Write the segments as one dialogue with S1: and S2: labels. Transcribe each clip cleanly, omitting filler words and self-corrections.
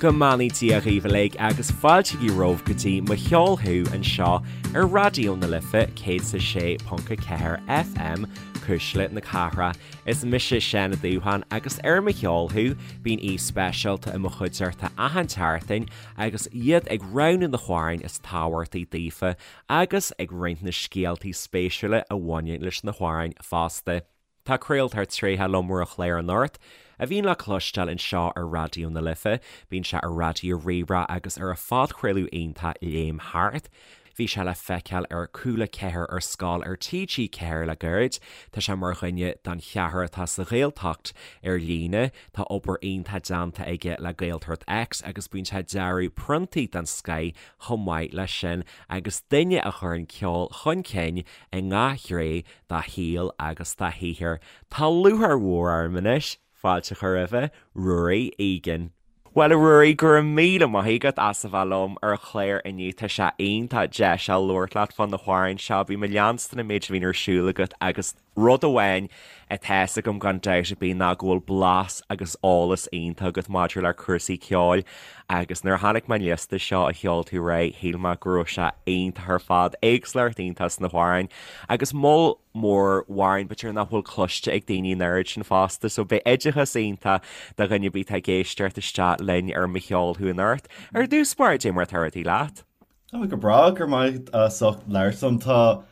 S1: Go mbeannaí Dia dhaoibh uilig agus fáiltígí romhaibh go dtí Mo Cheol Thú anseo ar Raidió na Life 106.4 FM, Cuisle na Cathrach. Is mise Seán Ó Dúbháin agus ar Mo Cheol Thú bíonn aoi speisialta i mo chuideachta achan tseachtain agus iad ag roghnú na hamhráin is tábhachtaí daofa agus ag roinnt na scéaltaí spéisiúla a bhaineann leis na hamhráin fosta. Tá craoltóir tréitheach liom ar an chlár anocht, a bhíonn le cloisteáil anseo ar Raidió na Life. Bíonn sé ar Raidió Rí-Rá agus ar a phodchraoladh iontach Léim Thart. Bhí sé le feiceáil ar Cúla 4 ar Scoil ar TG4 le gairid. Tá sé mar dhuine den cheathrar atá sa Ghaeltacht ar líne. Tá obair iontach déanta aige le Gaeltacht X agus bíonn sé ag dearadh priontaí den scoith chomh maith leis sin agus duine a chuireann ceol chun cinn i ngach gné dá shaol agus dá shaothar. Tá lúcháir mhór orm anois fáilte a chur roimhe, Ruairí Egan. Bhuel, a Ruairí, go raibh míle maith agat as a bheith liom ar an chlár inniu. Tá sé iontach deis a labhairt leat fá na hamhráin seo. Bím ag leanstan an méid a bhíonn ar siúl agat agus rud amháin atá fhios agam gan dabht ar bith ná go bhfuil blas agus eolas iontach agat maidir le cúrsaí ceoil agus nuair a chonaic mé an liosta seo a sheol tú aréir shíl mé go raibh sé iontach ar fad, éagsúlacht iontach sna hamhráin agus moll mór amhrán b'fhéidir nach bhfuil cloiste ag daoine an oiread sin fosta so beidh oideachas iontach do dhuine ar bith atá ag éisteacht isteach linn ar Mo Cheol Thú anocht. Ar dtús báire, cad é mar atá rudaí leat?
S2: Tá go breá, go raibh maith agat as ucht labhairt liom. Tá,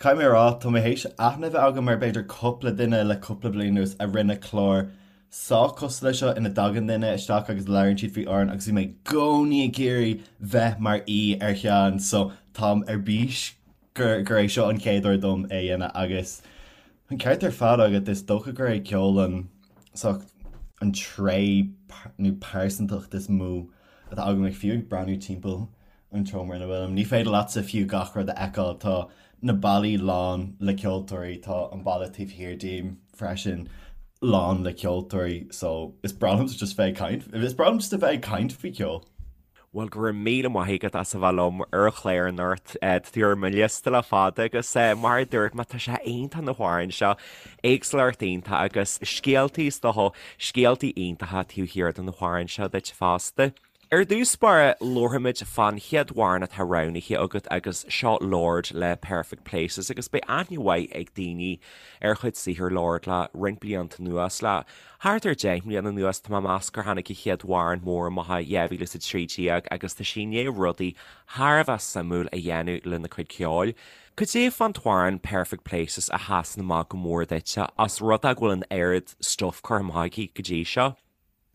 S2: caithfidh mé a rá, tá mé théis aithne a bheith agam ar b'fhéidir cúpla duine le cúpla bliain anuas a rinne clár sách cosúil leis seo ina dtagann duine isteach agus labhraíonn siad faoi amhrán agus bhí mé i gcónaí ag iarraidh bheith mar aoi ar cheann so táim ar bís gur gur é seo an chéad uair dom é a dhéanamh agus an ceart ar fad agat is dócha gur é ceol an sórt an tréith nó pearsantacht is mó atá agam ag fiú ag breathnú timpeall an tseomra ina bhfuilim. Ní féidir leatsa fiú gach rud a fheiceáil. Tá na ballaí lán le ceoltóirí, tá an balla taobh thiar díom freisin lán le ceoltóirí so is breá liomsa just bheith ag caint, is breá liom just a bheith ag caint faoi cheol.
S1: Bhuel, go raibh míle maith agat as a bheith liom ar an chlár anocht. Tá tú ar mo liosta le fada agus mar a dúirt mé, tá sé iontach na hamhráin seo, éagsúlacht iontach agus scéaltaí is dócha, scéaltaí iontacha taobh thiar de na hamhráin seo duit fosta. Ar dtús báire, labharfaimid fán chéad amhrán atá roghnaithe agat agus seo Lorde le Perfect Places agus beidh aithne mhaith ag daoine ar chuid saothar Lorde le roinnt blianta anuas, le thart ar 10 mbliana anuas tá mé ag meas gur tháinig a chéad amhrán mór amach i 2013 agus tá sí i ndiaidh rudaí thar a bheith suimiúil a dhéanamh lena cuid ceoil. Cad é fán t-amhrán Perfect Places a sheasann amach go mór duitse os rud é go bhfuil an oiread stuif curtha amach aici go dtí seo?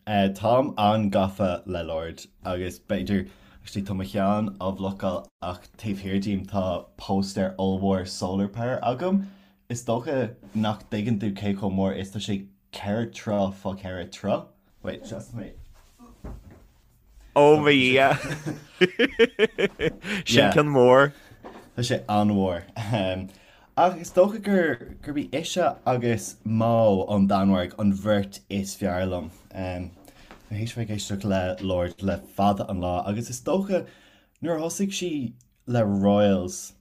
S2: Táim an-gafa le Lorde agus b'fhéidir, actually tá mo cheann á bhlocáil ach taobh thiar díom tá póstaer ollmhór Solar Power agam. Is dócha nach dtuigeann tú cé chomh mór is tá sé 4 troigh fá 4 troigh. Wait, seasfaidh mé.
S1: Ó mo Dhia! Sin ceann mór.
S2: Tá sé an-mhór. Ach is dócha gur gurb í ise agus MØ ón Danmhairg an bheirt is fearr liom. Tá mé théis bheith ag éisteacht le Lorde le fada an lá agus is dócha nuair a thosaigh sí le Royals,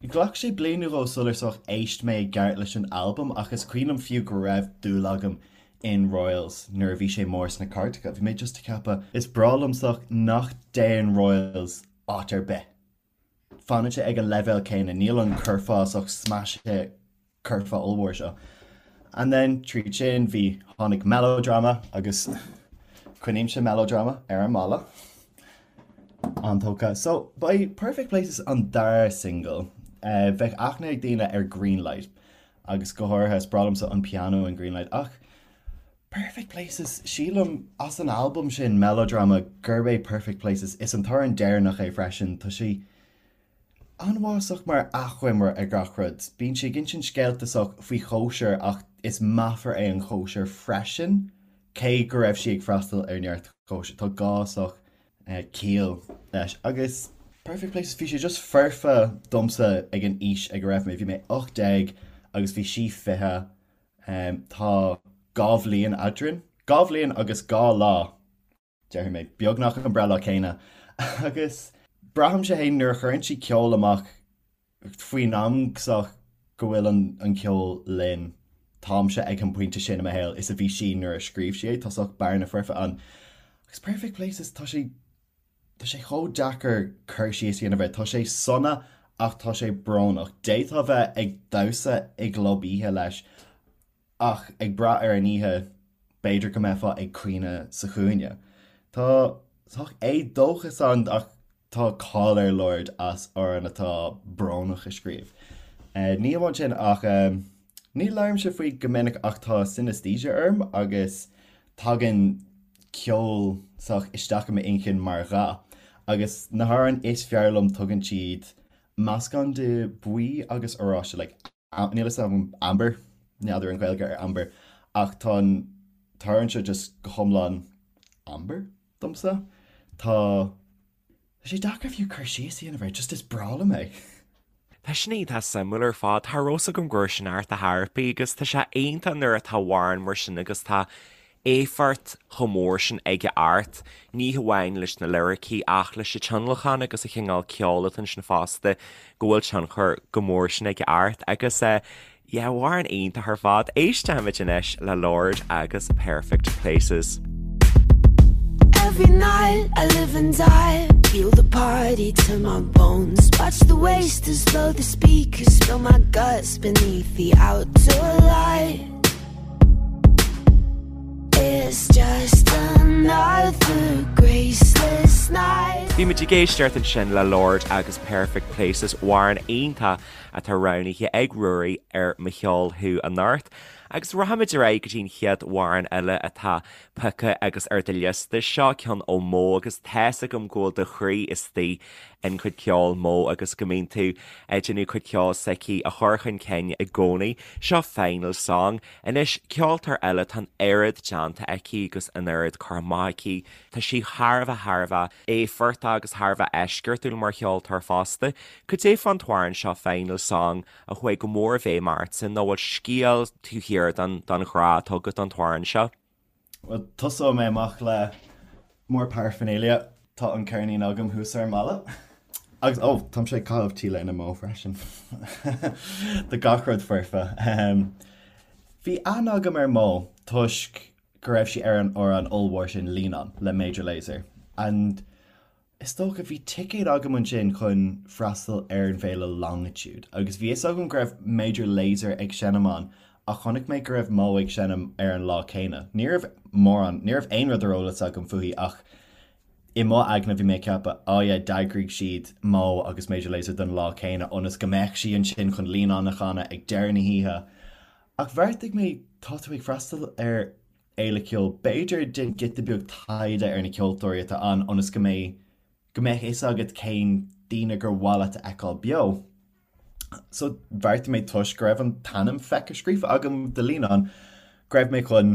S2: Ghlac sé bliain nó dhó sular sórt éist mé i gceart leis an albam ach is cuimhin liom fiú go raibh dúil agam in Royals nuair a bhí sé mór sna cairteacha. Bhí mé just ag ceapadh, is breá liom sórt nach dtéann Royals áit ar bith. Fanann sé ag an leibhéal céanna, níl an curfá sórt smash hit curfá ollmhór seo. And then tríd sin bhí, tháinig Melodrama agus coinnímse Melodrama ar an mballa. An-tógtha. So ba é Perfect Places an dara single. Bheadh aithne ag daoine ar Greenlight agus go háirithe is breá liomsa an pianó in Greenlight ach Perfect Places, sílim as an albam sin Melodrama gurb é Perfect Places, is an t-amhrán deireanach é freisin, tá sé an-mhaith sórt mar achoimre ar gach rud. Bíonn sí ag insint scéalta sórt faoi chóisir ach is meafar é an chóisir freisin, cé go raibh sí ag freastal ar neart cóisir. Tá gá sórt ciall leis. Agus Perfect Places, bhí sé just foirfe domsa ag an aois ag a raibh mé. Bhí mé 18 agus bhí sí 20. Tá 2 bhliain eadrainn. 2 bhliain agus 2 lá. déarfaidh mé, beagnach an breithlá céanna. Agus braithimse féin nuair a chuireann sí ceol amach faoin am sórt go bhfuil an ceol linn, táimse ag an bpointe sin i mo shaol is a bhí sí nuair a scríobh sí é, tá sórt bearna foirfe ann. Agus Perfect Places, tá sé, tá sé chomh deacair cur síos a dhéanamh air. Tá sé sona ach tá sé brónach. D'fhéadfá bheith ag damhsa i gclub oíche leis ach ag brath ar an oíche, b'fhéidir go mbeifeá ag caoineadh sa chúinne. Tá sách éadóchas ann ach tá cáil ar Lorde as amhráin atá brónach a scríobh. Ní amháin sin ach ní labhraímse faoi go minic ach tá synesthesia orm agus tagann ceol sách isteach i m'inchinn mar dhath agus na hamhráin is fearr liom tugann siad meascán de buí agus oráiste like níl a fhios agam amber, n'fheadar an Ghaeilge ar amber ach tá an t-amhrán seo just go hiomlán amber domsa. Tá sé deacair fiú cur síos a dhéanamh air, just is breá liom é.
S1: Tá sin iontach suimiúil ar fad. Cha raibh 's agam go raibh sin ort a thairpí agus tá sé iontach nuair atá amhrán mar sin agus tá éifeacht chomh mór sin aige ort, ní hamháin leis na liricí ach leis an tionlacan agus an chineál ceoil atá ansin fosta, go bhfuil tionchar chomh mór sin aige ort agus eh yeah, amhrán iontach ar fad. Éistfimid anois le Lorde agus Perfect Places. Every night I live and die Feel the party to my bones Watch the wasters blow the speakers Spill my guts beneath the outdoor light It's just another graceless night. Bhí muid ag éisteacht ansin le Lorde agus Perfect Places, amhrán iontach atá roghnaithe ag Ruairí ar Mo Cheol Thú anocht. Agus rachaimid ar aghaidh go dtí an chéad amhrán eile atá pioctha agus ar do liosta. Seo ceann ó Mó agus tá's agam go bhfuil do chroí istigh in cuid ceoil Mó agus go mbíonn tú ag déanamh cuid ceoil s'aici a chur chun cinn i gcónaí. Seo Final Song. Anois, ceoltóir eile, tá an oiread déanta aici agus an oiread curtha amach aici. Tá sí thar a bheith, thar a bheith éifeachtach agus thar a bheith eisceachtúil mar cheoltóir fosta. Cad é fán t-amhrán seo Final Song a chuaigh go mór i bhfeidhm ortsa nó bhfuil scéal taobh thiar den ghrá atá agat don t-amhrán seo?
S2: Bhuel, tosóidh mé amach le more paraphernalia. Tá an ceirnín agam thuas ar an mballa. Agus, oh, táimse ag caitheamh T-léine Mó freisin. Tá gach rud foirfe. Bhí aithne agam ar Mó toisc go raibh sí ar an amhrán ollmhór sin Lean On le Major Lazer. And Is dócha, bhí ticéad agam ansin chun freastal ar an bhféile Longitude agus bhí fhios agam go raibh Major Lazer ag seinm ann ach chonaic mé go raibh Mó ag seinm ar an lá céanna. Ní raibh mórán, ní raibh aon rud ar eolas agam fúithi ach i mo aigne bhí mé ag ceapadh oh yeah d'eagraigh siad Mó agus Major Lazer don lá céanna ionas go mbeadh sí ansin chun Lean On a chanadh ag deireadh na hoíche. Ach bheartaigh mé tá tú ag freastal ar fhéile ceoil. B'fhéidir déan giota beag taighde ar na ceoltóirí atá ann ionas go mbeidh go mbeadh fhios agat cén daoine gur mhaith leat a fheiceáil beo. So bheartaigh mé toisc go raibh an t-ainm feicthe scríofa agam do Lean On go raibh mé chun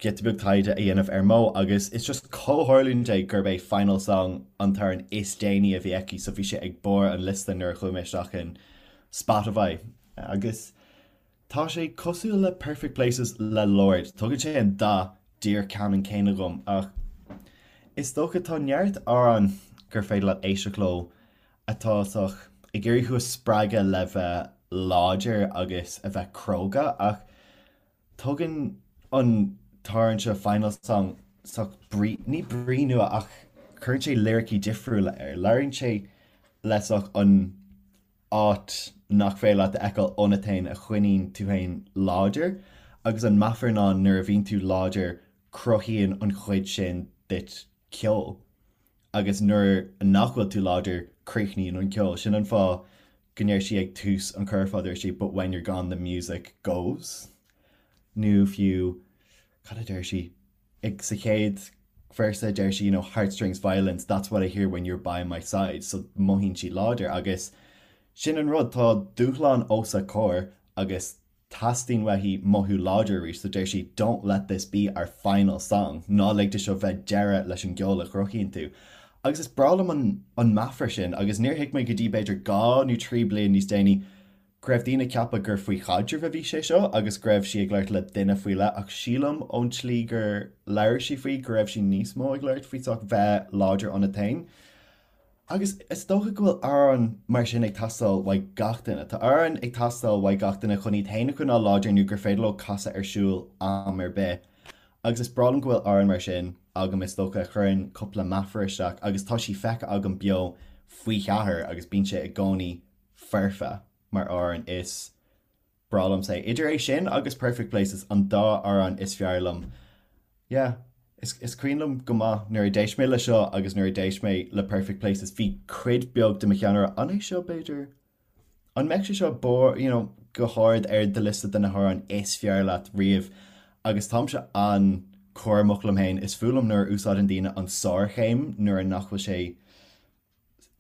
S2: giota beag taighde a dhéanamh ar Mó agus is just comhtharlúint é gurb é Final Song an t-amhrán is déanaí a bhí aici so bhí sé ag barr an liosta nuair a chuaigh mé isteach in Spotify agus Tá sé cosúil le Perfect Places le Lorde, tugann sé an dath díreach ceannann céanna dhom ach is dócha tá neart amhrán gur féidir leat éisteacht leo atá sách ag iarraidh thú a spreagadh le bheith láidir agus a bheith cróga ach tugann an t-amhrán seo Final Song sách brí, ní brí nua ach cuireann sé liricí difriúla air, labhraíonn sé le sách an áit nach féidir leat a fheiceáil ionat féin a choinníonn tú féin láidir agus an meafar ná nuair a bhíonn tú láidir cruthaíonn an chuid sin duit ceol agus nuair nach bhfuil tú láidir críochnaíonn an ceol. Sin an fáth go ndeir sí ag tús an curfá deir sí but when you're gone the music goes nó fiú cad a deir sí? ag sa chéad véarsa deir sí you know heartstrings violins that's what I hear when you're by my side so mothaíonn sí láidir agus sin an rud tá dúshlán os a comhair agus teastaíonn uaithi mothú láidir arís so deir sí don't let this be our final song ná lig de seo bheith deireadh leis an gceol a chruthaíonn tú agus is breá liom an an meafar sin agus níor thuig mé go dtí b'fhéidir 2 nó 3 bliain níos déanaí go raibh daoine ag ceapadh gur faoi chaidreamh a bhí sé seo agus go raibh sí ag labhairt le duine faoi leith ach sílim ón tslí gur labhair sí faoi go raibh sí níos mó ag labhairt faoi sách bheith láidir ionat féin. Agus is dócha go bhfuil amhrán mar sin ag teastáil uaidh gach duine. Tá amhrán ag teastáil uaidh gach duine chun iad féin a choinneáil láidir nó gur féidir leo casadh ar siúl am ar bith. Agus is breá liom go bhfuil amhrán mar sin agam is dócha a chuireann cúpla meafar isteach agus tá sí feicthe agam beo faoi cheathair agus bíonn sé i gcónaí foirfe mar amhrán is breá liomsa é. Idir é sin agus Perfect Places an dá amhrán is fearr liom. Yeah, is is cuimhin liom go maith nuair a d'éist mé le seo agus nuair a d'éist mé le Perfect Places bhí cuid beag de mo cheann ag rá an é seo b'fhéidir? An mbeadh sé seo bor, you know, go hard ar do liosta de na hamhráin is fearr leat riamh? Agus táimse an-chúramach liom féin, is fuath liom nuair a úsáideann daoine an sárchéim nuair nach bhfuil sé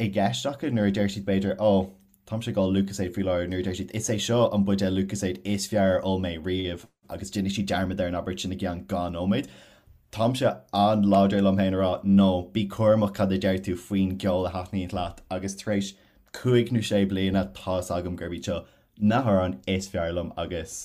S2: i gceist acu, nuair a deir siad b'fhéidir oh, táimse ag ól Lucozade faoi láthair, nuair a deir siad is é seo an buidéal Lucozade is fearr ar ól mé riamh agus déanfaidh siad dearmad ar an abairt sin i gceann 2 nóiméad. Táimse an-láidir liom féin a rá no, bí cúramach cad a deir tú faoin gceol a thaitníonn leat agus tar éis 5 nó 6 bliana tá's agam gurb iad seo na hamhráin is fearr liom agus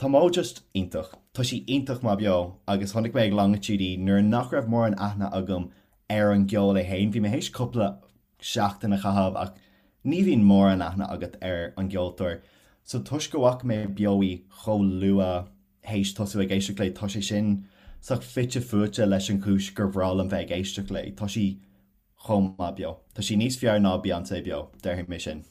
S2: tá Mo just iontach. Tá sí iontach maith beo agus chonaic mé ag Longitude í nuair nach raibh mórán aithne agam ar an gceol é féin. Bhí mé théis cúpla seachtain a chaitheamh ach ní bhíonn mórán aithne agat ar an gceoltóir so toisc go bhfaca mé beo í chomh luath théis tosú ag éisteacht léi tá sé sin sách fite fuaite leis an chúis gur bhreá liom bheith ag éisteacht léi. Tá sí chomh maith beo. Tá sí níos fearr ná Beyoncé beo, déarfaidh mé sin.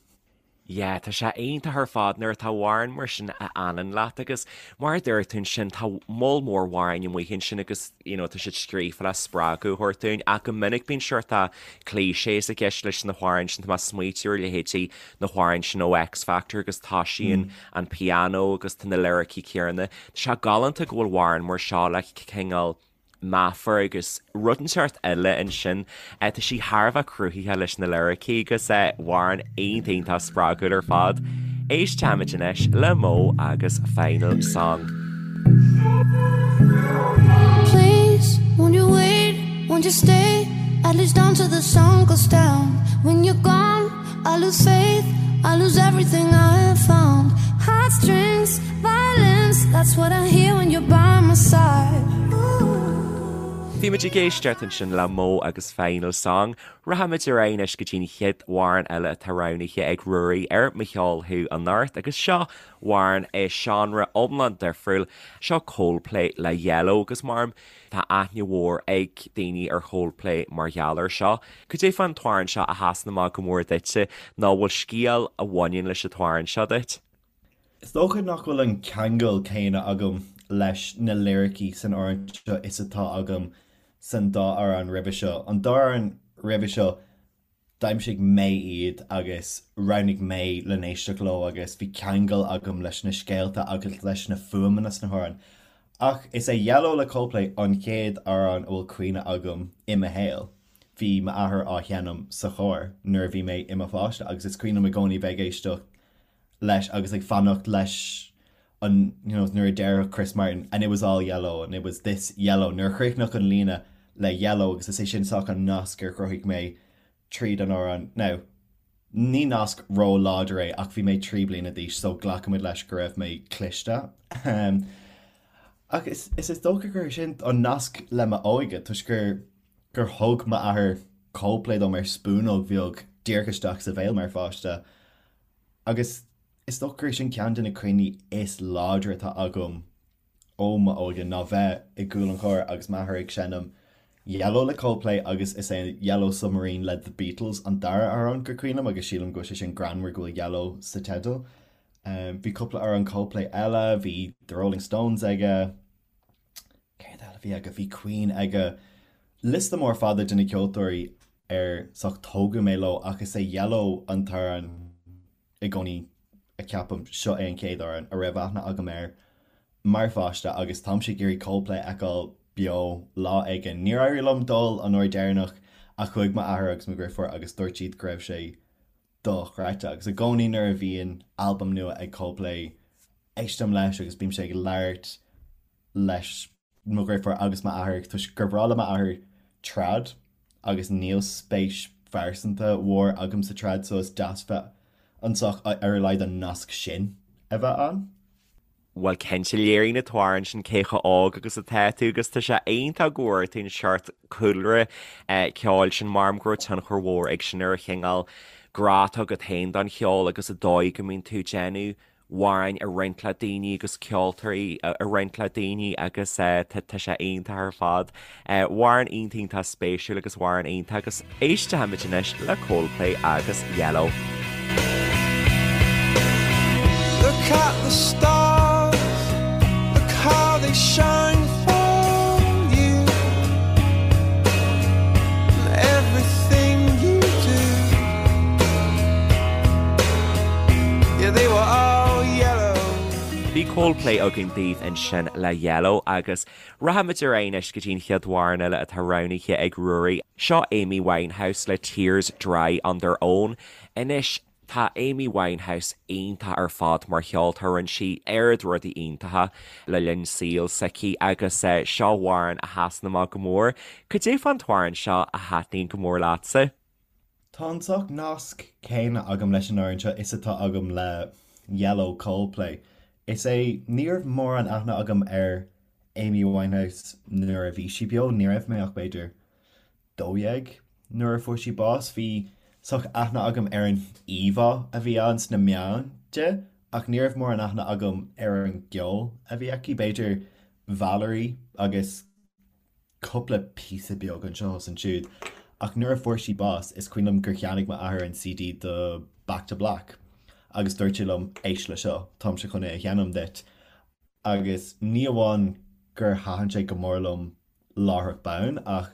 S1: Yeah, tá sé iontach ar fad nuair atá amhrán mar sin a fhanann leat agus mar a dúirt tú ansin tá moll mór amhráin amuigh ansin agus you know tá siad scríofa le spreagadh a thabhairt dúinn ach go minic bíonn sórt clichés i gceist leis na hamhráin sin, tá mé ag smaoitiú ar leithéidí na hamhráin sin ó X Factor agus toisíonn an pianó agus tá na liricí céanna. Tá sé galánta go bhfuil amhrán mar seo le cineál meafar agus rud inteacht eile ansin. Tá sí thar a bheith cruthaitheach leis na liricí agus amhrán iontach iontach spreagúil ar fad. Éistfimid anois le Mo agus Final Song. Please, won't you wait, won't you stay At least until the sun goes down When you're gone, I lose faith I lose everything I have found Heartstrings, violence That's what I hear when you're by my side Bhí muid ag éisteacht ansin le Mo agus Final Song. Rachaimid ar aghaidh anois go dtí an chéad amhrán eile atá roghnaithe ag Ruairí ar Mo Cheol Thú anocht agus seo amhrán i seánra iomlán difriúil. Seo Coldplay le Yellow agus mar tá aithne mhór ag daoine ar Choldplay mar gheall air seo. Cad é fán t-amhrán seo a sheasann amach go mór duitse nó bhfuil scéal a bhaineann leis an t-amhrán seo duit?
S2: Is dócha nach bhfuil an ceangal céanna agam leis na liricí san amhrán seo is atá agam san dá amhrán roimhe seo. An dá amhrán roimhe seo, d'aimsigh mé iad agus roghnaigh mé le n-éisteacht leo agus bhí ceangal agam leis na scéalta agus leis na fuaimeanna sna hamhráin. Ach is é Yellow le Coldplay an chéad amhrán a bhfuil cuimhne agam i mo shaol. Bhí m'athair á sheinm sa charr nuair a bhí mé i mo pháiste agus is cuimhin liom i gcónaí bheith ag éisteacht leis agus ag fanacht leis an you know nuair a déarfadh Chris Martin and it was all yellow and it was this yellow nuair a chríochnódh an líne le yellow agus is é sin sách an nasc ar chruthaigh mé tríd an amhrán. Now ní nasc ró-láidir é ach bhí mé 3 bliana d'aois so glacaimid leis go raibh mé cliste. Ach is is is dócha gur sin an nasc le m'óige toisc gur gur thug m'athair Coldplay dom ar spúnóg bheag díreach isteach sa bhéal mar pháiste. Agus is dócha gur sin ceann de na cuimhní is láidre atá agam ó m'óige ná bheith i gcúl an chairr agus m'athair ag seinm Yellow le Coldplay agus is é Yellow Submarine le The Beatles an dara amhrán gur cuimhin liom agus sílim go bhfuil sé sin greannmhar go bhfuil Yellow sa teideal. Bhí cúpla amhrán Coldplay eile, bhí The Rolling Stones aige, Céard eile a bhí aige? Bhí Queen aige. Liosta mór fada de na ceoltóirí ar sách tógadh mé leo ach is é Yellow an t-amhrán i gcónaí a ceapaim, seo é an chéad amhrán a raibh aithne agam air mar pháiste agus táimse ag iarraidh Coldplay a fheiceáil beo lá éigin. Níor éirigh liom dul an uair deireanach ach chuaigh m'athair agus mo dheirfiúr agus dúirt siad go raibh sé dochreidte agus i gcónaí nuair a bhíonn albam nua ag Coldplay éistim leis agus bímse ag labhairt leis mo dheirfiúr agus m'athair toisc gur bhreá le m'athair trad agus níl spéis phearsanta mhór agam sa trad so is deas bheith anseo ar a laghad an nasc sin a bheith ann.
S1: Bhuel cinnte, léiríonn an t-amhrán sin cé chomh óg agus atá tú agus tá sé iontach go bhfuair tú an seort cúlra ceoil sin mar go raibh tionchar mhór ag sin ar an chineál grá atá agat féin don cheol agus an dóigh go mbíonn tú ag déanamh. amhráin a roinnt le daoine agus ceoltóirí a roinnt le daoine agus tá sé iontach ar fad. Amhrán iontach iontach spéisiúil agus amhrán iontach agus éistfimid anois le Coldplay agus Yellow.
S3: Look at the stars, look how they shine for you And everything you do Yeah, they were all yellow.
S1: Bhí Coldplay againn daoibh ansin le Yellow agus Rachaimid ar aghaidh anois go dtí an chéad amhrán eile atá roghnaithe ag Ruairí. Seo Amy Winehouse le Tears Dry on Their Own. Anois, tá Amy Winehouse iontach ar fad mar cheoltóir, rinne sí oiread rudaí iontacha le linn saoil s'aici agus seo amhrán a sheasann amach go mór. Cad é fán t-amhrán seo a thaitníonn go mór leatsa?
S2: Tá an sórt nasc céanna agam leis an amhrán seo is atá agam le Yellow Coldplay. Is é, ní raibh mórán aithne agam ar Amy Winehouse nuair a bhí sí beo, ní raibh mé ach b'fhéidir 12 nuair a fuair sí bás. Bhí sórt aithne agam ar an íomhá a bhí ann sna meáin di ach ní raibh mórán aithne agam ar an gceol a bhí aici, b'fhéidir Valerie agus cúpla píosa beag anseo is ansiúd, ach nuair a fuair sí bás, is cuimhin liom gur cheannaigh m'athair an CD de Back to Black agus dúirt sé liom, éist le seo, táimse chun é a sheinm duit. Agus ní amháin gur thaitin sé go mór liom láithreach bonn, ach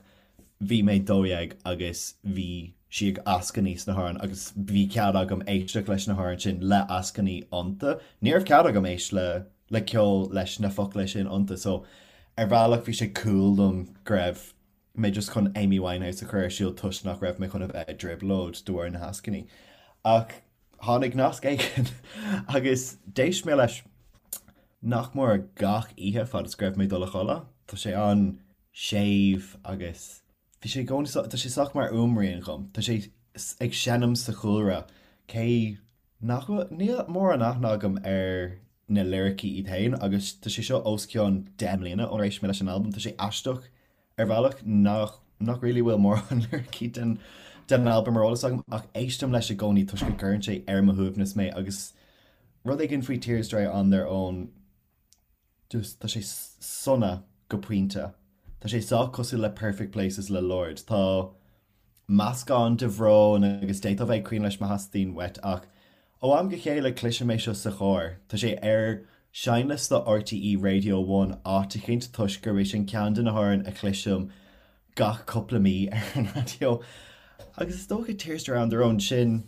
S2: bhí mé 12 agus bhí sí ag eascainí sna hamhráin agus bhí cead agam éisteacht leis na hamhráin sin le eascainí iontu. Ní raibh cead agam éist le le ceol leis na focla sin iontu so ar bhealach bhí sé cool dom go raibh mé just chun Amy Winehouse a chur ar siúl toisc nach raibh mé chun a bheith i dtrioblóid de bharr na heascainí. Ach tháinig nasc éigin agus d'éist mé leis nach mór gach oíche fad is go raibh mé ag dul a chodladh. Tá sé an-séimh agus bhí sé i gcónaí, tá sé sách mar fhuaimrian dhom. Tá sé ag seinm sa chúlra cé Nach bhfuil, níl mórán aithne agam ar na liricí iad féin agus tá sé seo os cionn 10 mbliana ónar éist mé leis an albam. Tá sé aisteach ar bhealach nach, nach really bhfuil mórán liricí den, den albam ar eolas agam ach éistim leis i gcónaí toisc go gcuireann sé ar mo shuaimhneas mé agus rud éigin faoi Tears Dry on Their Own Just, tá sé sona go pointe. Tá sé sách cosúil le Perfect Places le Lorde. Tá meascán de bhrón agus d'fhéadfá bheith ag caoineadh leis má theastaíonn uait ach ó am go chéile cloisim é seo sa charr. Tá sé ar seinnliosta RTÉ Radio One áit eicínt toisc gurb é sin ceann de na hamhráin a chloisim gach cúpla mí ar an raidió. Agus is dócha Tears Dry on Their Own, sin,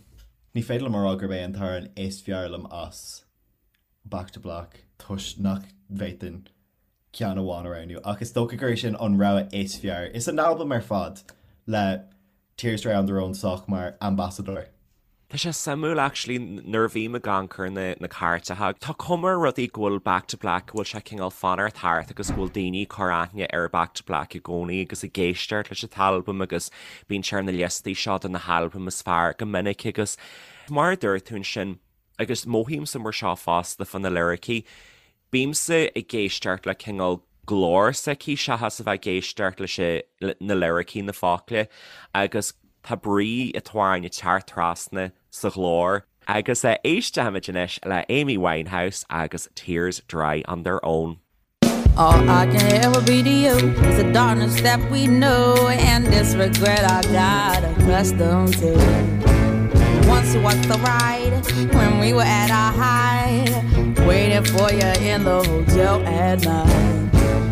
S2: ní féidir liom a rá gurb é an t-amhrán is fearr liom as. Back to Black toisc nach bhféadfainn ceann amháin a roghnú ach is dócha gur é sin an rogha is fearr. Is an albam ar fad le Tears Dry on Their Own sách mar ambasadóir.
S1: Tá sé suimiúil actually nuair a bhím ag amharc ar na na cairteacha, tá cuma ar rudaí go bhfuil Back to Black, go bhfuil sé cineál fanacht thart agus go bhfuil daoine ag cur aithne ar Back to Black i gcónaí agus ag éisteacht leis an t-albam agus bíonn sé ar na liostaí seo de na halbaim is fearr go minic agus mar a dúirt tú ansin, Agus mothaímse mar seo fosta fá na liricí, bímse ag éisteacht le cineál glór s'aici seachas a bheith ag éisteacht leis na liricí, na focla, agus tá brí an t-amhráin ag teacht trasna sa ghlór. Agus éistfimid anois le Amy Winehouse agus Tears Dry on Their Own.
S3: All I can ever be to you is the darkness that we know and this regret I got accustomed to. Once was the ride when we were at our height, waiting for you in the hotel at night.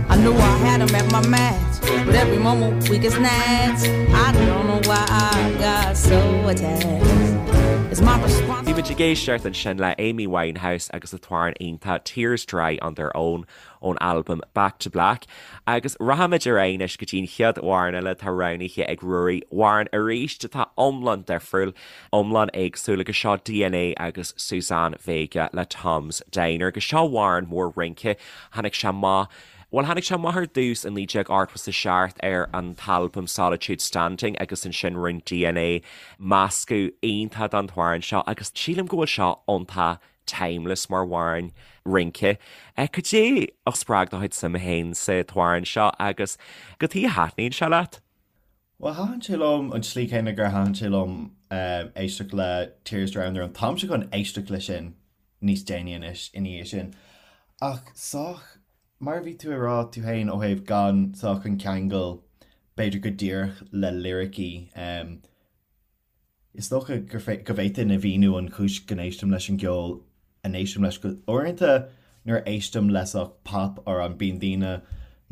S3: I knew I had him at my match, but every moment we get snatched. I don't know why I got so attached. It's my
S1: Bhí muid ag éisteacht ansin le Amy Winehouse agus an t-amhrán iontach Tears Dry on Their Own ón albam Back to Black. Agus rachaimid ar aghaidh anois go dtí an chéad amhrán eile atá roghnaithe ag Ruairí, amhrán arís atá iomlán difriúil, iomlán éagsúil agus seo DNA agus Suzanne Vega le Tom's Diner. Agus seo amhrán mór rince, tháinig sé amach, bhuel tháinig sé amach ar dtús i 1987 ar an t-albam Solitude Standing agus ansin rinne DNA meascadh iontach den t-amhrán seo agus sílim go bhfuil seo iontach timeless mar amhrán rince. Cad é a spreag do chuid suime féin sa t-amhrán seo agus cad chuige a thaitníonn sé leat?
S2: Bhuel, thaitin sé liom an tslí chéanna gur thaitin sé liom éisteacht le Tears Dry on Their Own. Táimse chun éisteacht leis sin. níos déanaí anois ina dhiaidh sin. Ach sách, mar a bhí tú ag rá tú féin ó thaobh gan sách an ceangal b'fhéidir go díreach le liricí, is dócha go bhféadfainn a mhíniú an chúis go n-éistim leis an gceol a n-éistim leis. Go uaireanta nuair a éistim le sách pop amhrán bíonn daoine,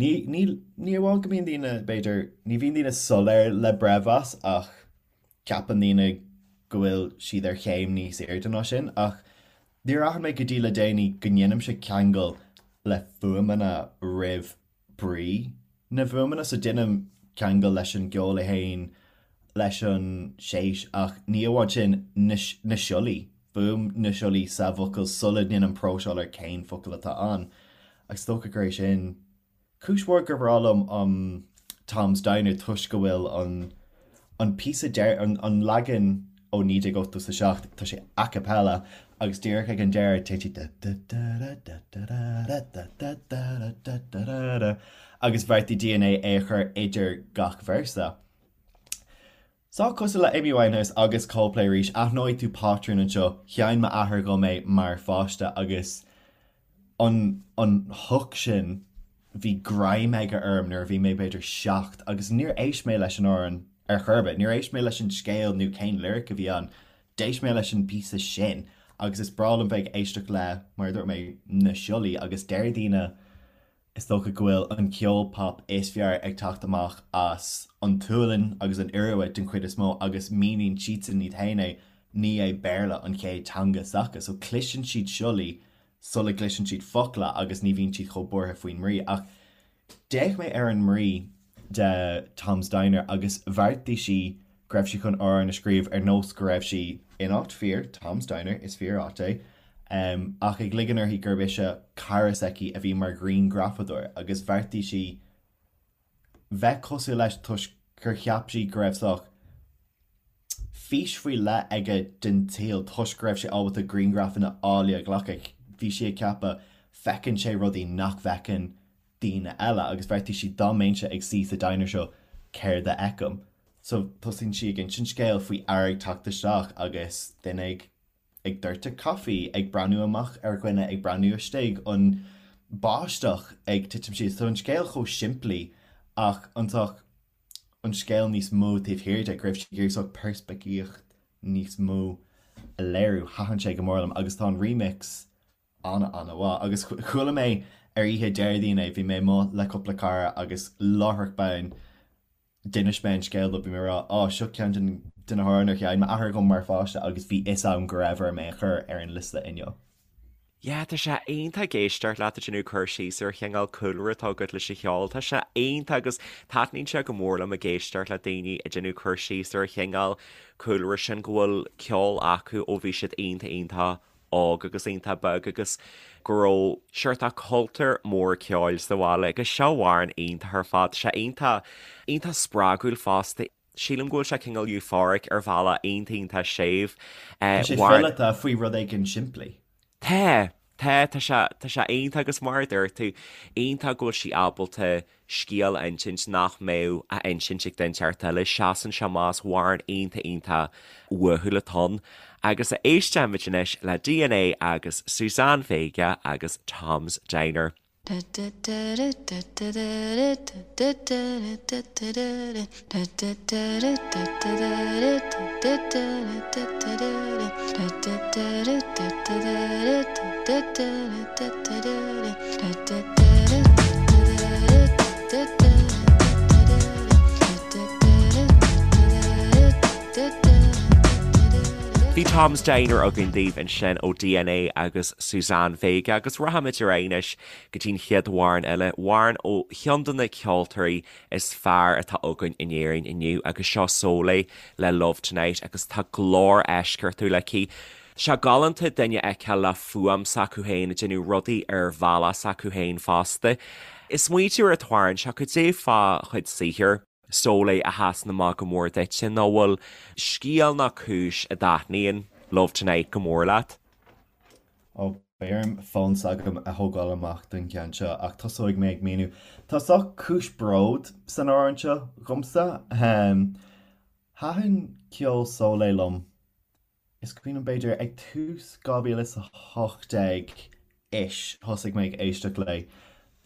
S2: ní, ní, ní amháin go mbíonn daoine b'fhéidir, ní bhíonn daoine soiléir le breithmheas ach ceapann daoine go bhfuil siad ar chéim níos airde ná sin ach níor aithin mé go dtí le déanaí go ndéanaimse ceangal le fuaimeanna roimh brí na bhfuaimeanna. So déanaim ceangal leis an gceol é féin, leis an séis ach ní amháin sin, na na siollaí, fuaim na siollaí sa bhfocal sula ndéanaim próiseáil ar cén focal atá ann. Agus is dócha gur é sin Cúis mhór gur bhreá liom um Tom's Diner toisc go bhfuil an an píosa deiridh, an an leagan ó 1987, tá sé a cappella agus díreach ag an deireadh téann sé da da da da da da da da da da da da da da agus bheartaigh DNA é a chur idir gach véarsa. Sách cosúil le Amy Winehouse agus Coldplay arís, aithneoidh tú pátrún anseo, sheinn m'athair dhom é mar pháiste agus an an hook sin, bhí greim aige orm nuair a bhí mé b'fhéidir 7 agus níor éist mé leis an amhrán ar chor ar bith, níor éist mé leis an scéal nó cén lyric a bhí ann, d'éist mé leis an bpíosa sin agus is breá liom bheith ag éisteacht le, mar a dúirt mé, na siollaí agus deir daoine Is dócha go bhfuil an ceol pop is fearr ag teacht amach as an tSualainn agus an Iorua den chuid is mó agus míníonn siadsan iad féin é, ní é Béarla an chéad teanga s'acu so cloiseann siad siollaí sula gcloiseann siad focla agus ní bhíonn siad chomh buartha faoin mbrí. Ach d'fhéach mé ar an mbrí de Tom's Diner agus bheartaigh sí go raibh sí chun amhrán a scríobh ar nós go raibh sí in áit fíor, Tom's Diner, is fíor áit é, ach ag ligean uirthi gurb ise cara s'aici a bhí mar ghrianghrafadóir agus bheartaigh sí bheith cosúil leis toisc gur cheap sí go raibh sách fís faoi leith aige den tsaol toisc go raibh sé ábalta grianghrafanna áille a ghlacadh. Bhí sí ag ceapadh, feiceann sé rudaí nach bhfeiceann daoine eile agus bheartaigh sí dá mbeinnse ag suí sa diner seo céard a fheicim? So tosaíonn sí ag insint scéal faoi fhear ag teacht isteach agus duine ag ag doirteadh caife, ag breathnú amach ar dhuine, ag breathnú istigh, an báisteach ag titim síos. So an scéal chomh simplí ach an sórt an scéal níos mó taobh thiar de, go raibh sí ag iarraidh sórt peirspictíocht níos mó a léiriú. Thaitin sé go mór liom agus tá an remix ana-ana-mhaith. Agus chuala mé ar oíche Déardaoin é, bhí mé amuigh le cúpla cara agus láithreach bonn d'inis mé an scéal dóibh, bhí mé ag rá, á, seo ceann de na hamhráin ar sheinn m'athair dhom mar pháiste agus bhí fhios agam go raibh orm é a chur ar an liosta inniu.
S1: Yeah, tá sé iontach ag éisteacht leat ag déanamh cur síos ar chineál cúlra atá agat leis an cheol. Tá sé iontach agus taitníonn sé go mór liom ag éisteacht le daoine ag déanamh cur síos ar chineál cúlra sin go bhfuil ceol acu ó bhí siad iontach iontach óg agus iontach beag agus go raibh seort cultúr mór ceoil sa bhaile agus seo amhrán iontach ar fad. Tá sé iontach, iontach spreagúil fosta. Sílim go bhfuil sé cineál euphoric ar bhealach iontach, iontach séimh.
S2: Tá sé fileata faoi rud éigin simplí.
S1: Tá, tá, tá sé, tá sé iontach agus mar a dúirt tú, iontach go bhfuil sí ábalta scéal a insint nach mbeadh á insint ag duine inteacht eile. Seasann sé amach, is amhrán iontach iontach uathúil atá ann. Agus éistfimid anois le DNA agus Suzanne Vega agus Tom's Diner. Bhí Tom's Diner againn daoibh ansin ó DNA agus Suzanne Vega agus rachaimid ar aghaidh anois go dtí'n chéad amhrán eile, amhrán ó cheann de na ceoltóirí is fearr atá againn in Éirinn inniu agus seo Sóley le Love Tonight agus tá glór eisceachtúil aici. Tá sé galánta duine a fheiceáil le fuaim s'acu féin ag déanamh rudaí ar bhealach s'acu féin fosta. Ag smaointiú ar an t-amhrán seo, cad é fá chuid saothair Sóley a sheasann amach go mór duitse nó bhfuil scéal nó cúis a dtaitníonn Love Tonight go mór leat?
S2: Ó, beidh orm fón s'agam a thógáil amach don cheann seo ach tosóidh mé ag míniú. Tá sórt cúis bród san amhrán seo dhomsa. Thaitin ceol Sóley liom. Is cuimhin liom b'fhéidir ag tús 2018 ish thosaigh mé ag éisteacht léi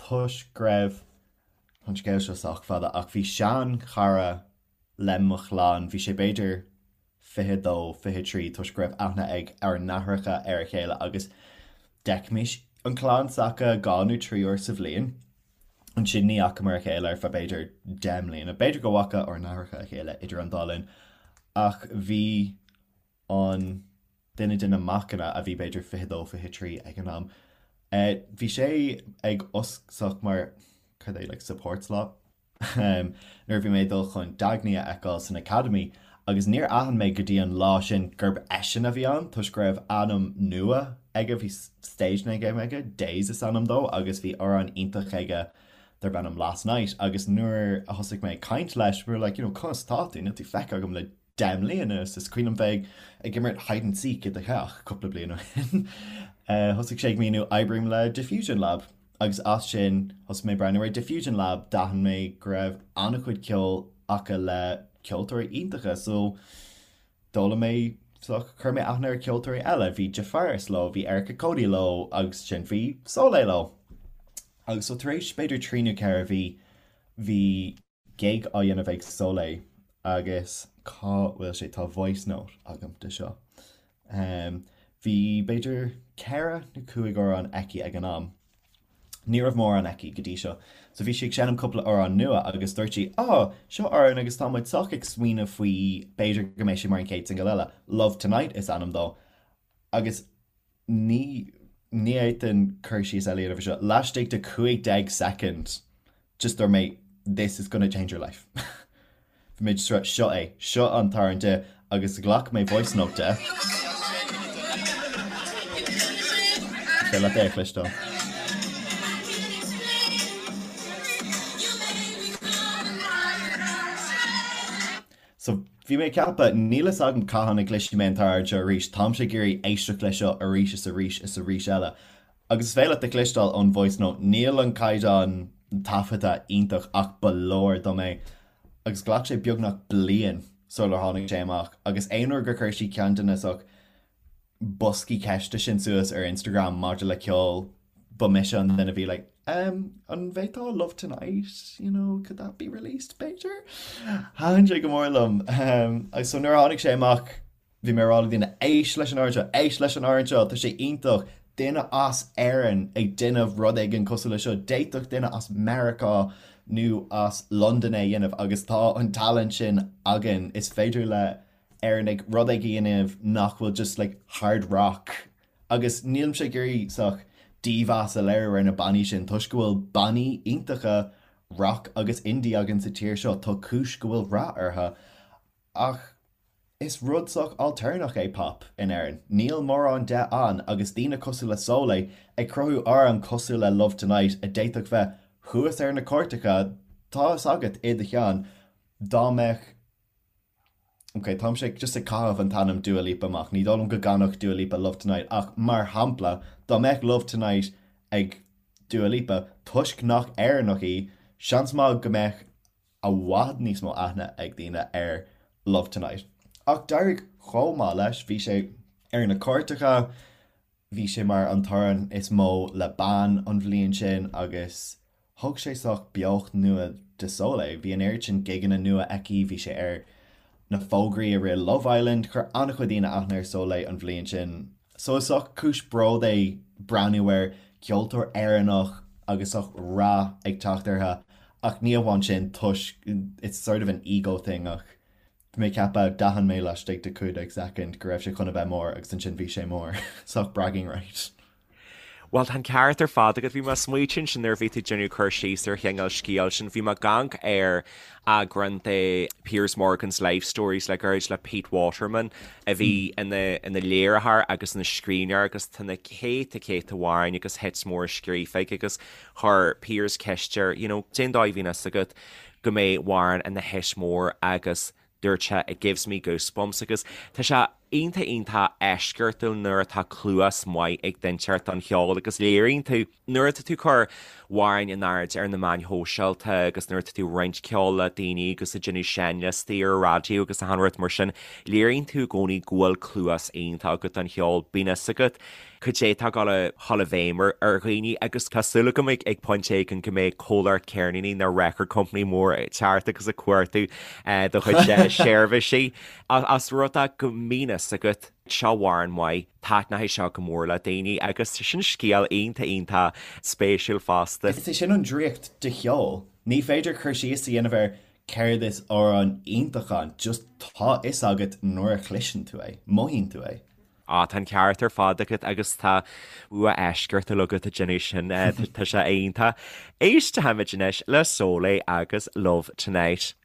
S2: toisc go raibh, tá an scéal seo sách fada ach bhí sean-chara le mo chlann, bhí sé b'fhéidir 22, 23 toisc go raibh aithne ag ár n-aithreacha ar a chéile agus d'fheicfimis an chlann s'acu 2 nó 3 uair sa bhliain. Ansin ní fhacamar a chéile ar feadh b'fhéidir 10 mbliana. B'fhéidir go bhfaca ár n-aithreacha a chéile idir an dá linn ach bhí an duine de na macanna a bhí b'fhéidir 22, 23 ag an am, bhí sé ag oscailt mar, cad é, like support slot? nuair a bhí mé ag dul chun Dagny a fheiceáil san Academy agus níor aithin mé go dtí an lá sin gurb eisean a bhí ann toisc go raibh ainm nua aige, bhí stage name aige, Daze is ainm dó agus bhí amhrán iontach aige darb ainm Last Night agus nuair a thosaigh mé ag caint leis, we were like, you know, conas tá tú, níl tú feicthe agam le 10 mbliana is is cuimhin liom bheith ag imirt hide and seek i do theach cúpla bliain ó shin. Thosaigh sé ag míniú oibrím le Diffusion Lab agus as sin thosaigh mé ag breathnú ar Diffusion Lab, d'aithin mé go raibh an-chuid ceoil acu le ceoltóirí iontacha so d'fhoghlaim mé so chuir mé aithne ar ceoltóirí eile, bhí Jafaris leo, bhí Erica Cody leo agus sin bhí Sóley leo. Agus so tar éis b'fhéidir trí nó ceithre mhí bhí gig á dhéanamh ag Sóley agus cá bhfuil sé, tá voice note agam de seo. Bhí b'fhéidir ceithre nó cúig amhrán aici ag an am. Ní raibh mórán aici go dtí seo. So bhí sí ag seinm cúpla amhrán nua agus dúirt sí, 'Á, seo amhrán agus tá muid sách ag smaoineamh faoi b'fhéidir go mbeidh sé mar an chéad singil eile. Love Tonight is ainm dó. Agus ní ní fhéadfainn cur síos eile a dhéanamh ar seo. Laistigh de 15 soicind, just dúirt mé this is gonna change your life. Bhí mé just seo é, seo an t-amhrán di agus ghlac mé voice note de. Is féidir leat é a chloisteáil. So, bhí mé ag ceapadh, níl fhios agam cathain a gcloisfidh mé an t-amhrán seo arís, táimse ag iarraidh éisteacht leis seo arís is arís is arís eile. Agus is féidir leat a chloisteáil ón voice note, níl an caighdeán taifeadta iontach ach ba leor dom é. Agus ghlac sé beagnach bliain sular tháinig sé amach agus aon uair gur chuir sí ceann de na sách boscaí ceiste sin suas ar Instagram maidir le ceol, ba mise an duine a bhí like, um, an bhféadfá Love Tonight, you know, could that be released, b'fhéidir? Thaitin sé go mór liom. Um, agus so nuair a tháinig sé amach, bhí mé ag rá le daoine, éist leis an amhrán seo, éist leis an amhrán seo, tá sé iontach, duine as Éirinn ag déanamh rud éigin cosúil le seo, d'fhéadfadh duine as Meiriceá nó as Londain é a dhéanamh agus tá an talent sin againn, is féidir le Éireannaigh rud éigin a dhéanamh nach bhfuil just like hard rock agus nílimse ag iarraidh sách dímheas a léiriú ar na bannaí sin toisc go bhfuil bannaí iontacha rock agus indie againn sa tír seo, tá cúis go bhfuil rath orthu ach is rud sách ailtéarnach é pop in Éirinn, níl mórán de ann agus daoine cosúil le Sóley ag cruthú amhrán cosúil le Love Tonight a d'fhéadfadh bheith thuas ar na cairteacha, tá fhios agat i do cheann dá mbeadh Ok, táimse just ag caitheamh an t-ainm Dua Lipa amach, ní dóigh liom go gcanfadh Dua Lipa Love Tonight ach mar shampla, dá mbeadh Love Tonight ag Dua Lipa, toisc nach Éireannach í, seans maith go mbeadh i bhfad níos mó aithne ag daoine ar Love Tonight. Ach d'éirigh chomh maith leis, bhí sé ar na cairteacha, Bhí sé mar an t-amhrán is mó le bean an bhliain sin agus thug sé sách beocht nua do Sóley. Bhí an oiread sin gigeanna nua aici, bhí sé ar na fógraí i rith Love Island, chuir an-chuid daoine aithne ar Sóley an bhliain sin. So is sách cúis bród é breathnú ar ceoltóir Éireannach agus sách rath ag teacht uirthi ach ní amháin sin toisc it's sort of an ego thing ach Bhí mé ag ceapadh, d'aithin mé laistigh de 15 soicind go raibh sé chun a bheith mór agus ansin bhí sé mór. Sách bragging right.
S1: Bhuel, tá an ceart ar fad agat. Bhí mé ag smaoitiú ansin nuair a bhí tú ag déanamh cur síos ar chineál scéal sin. Bhí mé ag amharc ar eagrán de Piers Morgan's Life Stories le gairid le Pete Waterman a bhí ina ina léiritheoir agus ina scríbhneoir agus tá na céadta céadta amhráin agus hits móra scríofa aige agus chuir Piers ceist air, you know, cén dóigh a bhíonn fhios agat go mbeidh amhrán ina hit mór agus dúirt sé it gives me goosebumps agus tá sé. Iontach iontach eisceachtúil nuair atá cluas maith ag duine inteacht don cheol agus léiríonn tú nuair atá tú ag cur amhráin in airde ar na meáin shóisialta agus nuair atá tú ag roinnt ceoil le daoine agus ag déanamh seinnliostaí ar an raidió agus achan rud mar sin, léiríonn tú i gcónaí go bhfuil cluas iontach agat don cheol. Bíonn fhios agat cad é atá ag dul a dhul i bhfeidhm ar dhaoine agus tá súil agam ag pointe éigin go mbeidh comhlacht ceirníní nó record company mór ag teacht agus ag cuartú do chuid seirbhísí. Ós rud é go mbíonn fhios agat, seo amhrán maith, taitneoidh seo go mór le daoine agus sin scéal iontach iontach spéisiúil fosta.
S2: Is é sin an draíocht de cheol. Ní féidir cur síos a dhéanamh ar céard is amhrán iontach ann, just tá fhios agat nuair a chloiseann tú é, mothaíonn tú é.
S1: Á, tá an ceart ar fad agat agus tá bua eisceachtúil agat ag déanamh sin, tá sé iontach. Éistfimid anois le Sóley agus Love Tonight.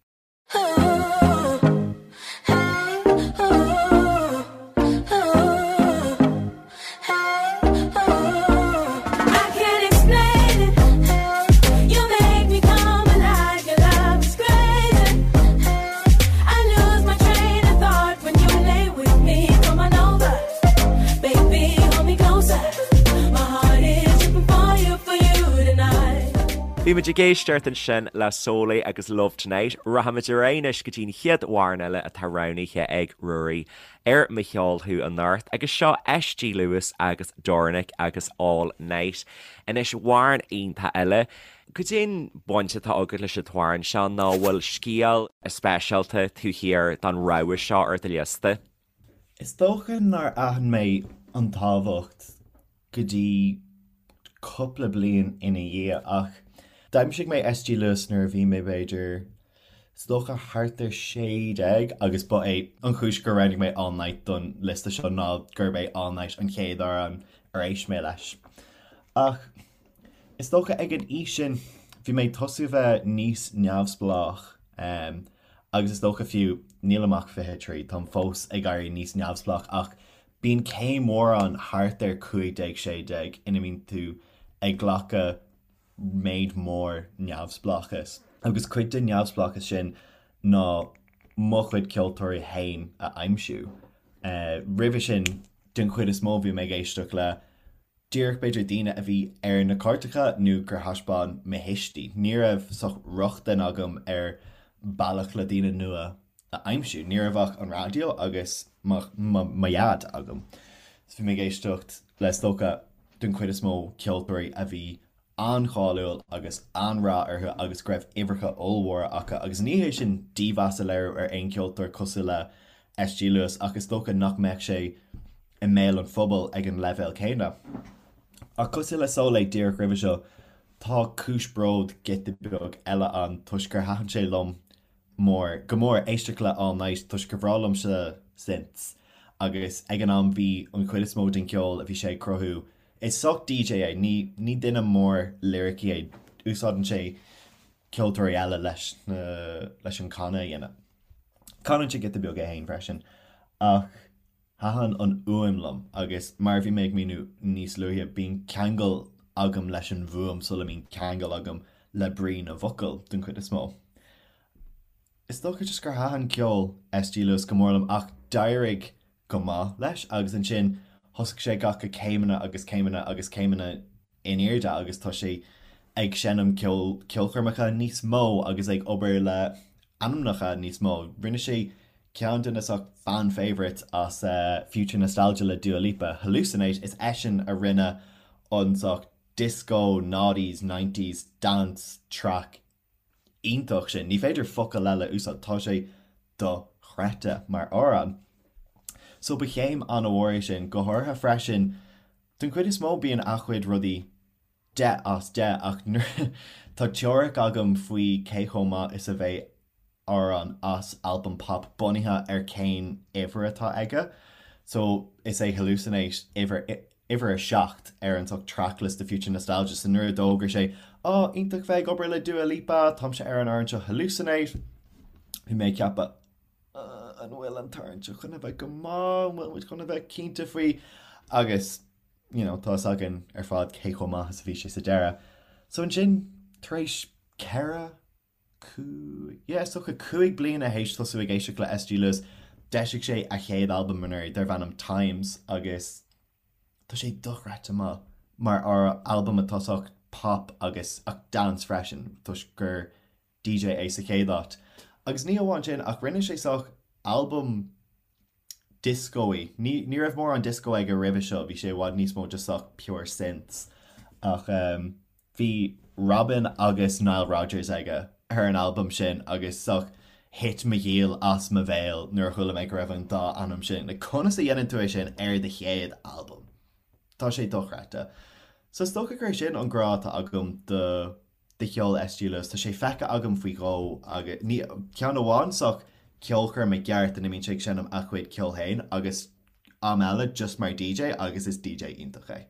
S1: Bhí muid ag éisteacht ansin le Sóley agus Love Tonight. Rachaimid ar aghaidh anois go dtí an chéad amhrán eile atá roghnaithe ag Ruairí ar Mo Cheol Thú anocht agus seo SG Lewis agus Dornick agus All Night. Anois amhrán iontach eile. Cad é an bhaint atá agat leis an t-amhrán seo nó an bhfuil scéal speisialta taobh thiar den rogha seo ar do liosta?
S2: Is dócha nár aithin mé an tábhacht go dtí cúpla bliain ina dhiaidh ach d'aimsigh mé SG Lewis nuair a bhí mé b'fhéidir, is dócha thart ar 16 agus ba é an chúis gur roghnaigh mé All Night don liosta seo ná gurb é All Night an chéad amhrán ar éist mé leis. Ach Is dócha ag an aois sin bhí mé ag tosú a bheith níos neamhspleách agus is dócha fiú, nílim ach 23, táim fós ag éirí níos neamhspleách ach bíonn céim mhór ann thart ar 15, 16 ina mbíonn tú ag glacadh méid mór neamhspleáchais agus cuid den neamhspleáchas sin ná mo chuid ceoltóirí féin a aimsiú. Roimhe sin, den chuid is mó bhí mé ag éisteacht le díreach b'fhéidir daoine a bhí ar na cairteacha nó gur thaispeáin mo thuistí. Ní raibh saghas rochtain agam ar bealach le daoine nua a aimsiú. Ní raibh ach an raidió agus mo dhaid agam. So bhí mé ag éisteacht le is dócha den chuid is mó ceoltóirí a bhí an-cháiliúil agus an-rath orthu agus go raibh uimhreacha ollmhóra acu agus ní hé sin dímheas a léiriú ar aon cheoltóir cosúil le SG Lewis ach is dócha nach mbeadh sé i mbéal an phobail ag an leibhéal céanna. Ach cosúil le Sóley díreach roimhe seo, tá cúis bróid giota beag eile ann toisc gur thaitin sé liom mór, go mór éisteacht le All Night toisc gur bhreá liomsa synths agus ag an am bhí an chuid is mó den cheol a bhí sé ag cruthú, is saghas DJ é, ní, ní duine mór liricí é, úsáideann sé ceoltóirí eile leis na, leis an canadh a dhéanamh. Canann sé giota beag é féin freisin ach Thaitin an fhuaim liom agus mar a bhí mé ag míniú níos luaithe, bíonn ceangal agam leis an bhfuaim sula mbíonn ceangal agam le brí na bhfocal, den chuid is mó. Is dócha just gur thaitin ceol SG Lewis go mór liom ach d'éirigh go maith leis agus ansin thosaigh sé ag glacadh céimeanna agus céimeanna agus céimeanna in airde agus tá sé ag seinm ceol ceolchoirmeacha níos mó agus ag obair le ainmneacha níos mó. Rinne sé ceann de na saghas fan favourites as Future Nostalgia le Dua Lipa, Hallucinate, is eisean a rinne an saghas disco noughties, nineties dance track iontach sin. Ní féidir focal eile a úsáid, tá sé dochreidte mar amhrán. So ba chéim an-mhór é sin, go háirithe freisin, den chuid is mó bíonn a chuid rudaí 10 as 10 ach tá teoiric agam faoi cé chomh maith is a bheidh amhrán as albam pop bunaithe ar cén uimhir atá aige. So is é Hallucinate uimhir uimhir 7 ar an saghas tracklist de Future Nostalgia so nuair a d'fhógair sé Á, iontach bheith ag obair le Dua Lipa, táimse ar an amhrán seo Hallucinate, bhí mé ag ceapadh an bhfuil an t-amhrán seo chun a bheith go maith, an bhfuil muid chun a bheith cinnte faoi agus you know, tá fhios againn ar fad cé chomh maith is a bhí sé sa deireadh. So ansin, tar éis 4, 5, yeah, is dócha 5 bliana théis tosú ag éisteacht le SG Lewis. D'eisigh sé a chéad albam anuraidh darbh ainm Times agus tá sé dochreidte maith mar albam atá sách pop agus ach dance freisin toisc gur DJ é sa chéad áit. Agus ní amháin sin ach rinne sé sách albam disco-y. Ní ní raibh mórán disco aige roimhe seo, bhí sé i bhfad níos mó just sách pure synths. Ach bhí Robyn agus Nile Rodgers aige ar an albam sin agus sách thit mo ghiall as mo bhéal nuair a chuala mé go raibh an dá ainm sin. Like conas a dhéanann tú é sin ar do chéad albam? Tá sé dochreidte. So is dócha gur é sin an grá atá agam do do cheol SG Lewis. Tá sé feicthe agam faoi dhó agus ní, ceann amháin sách ceolchoirm i gceart ina mbíonn sé ag seinm a chuid ceoil féin agus am eile just mar DJ agus is DJ iontach é.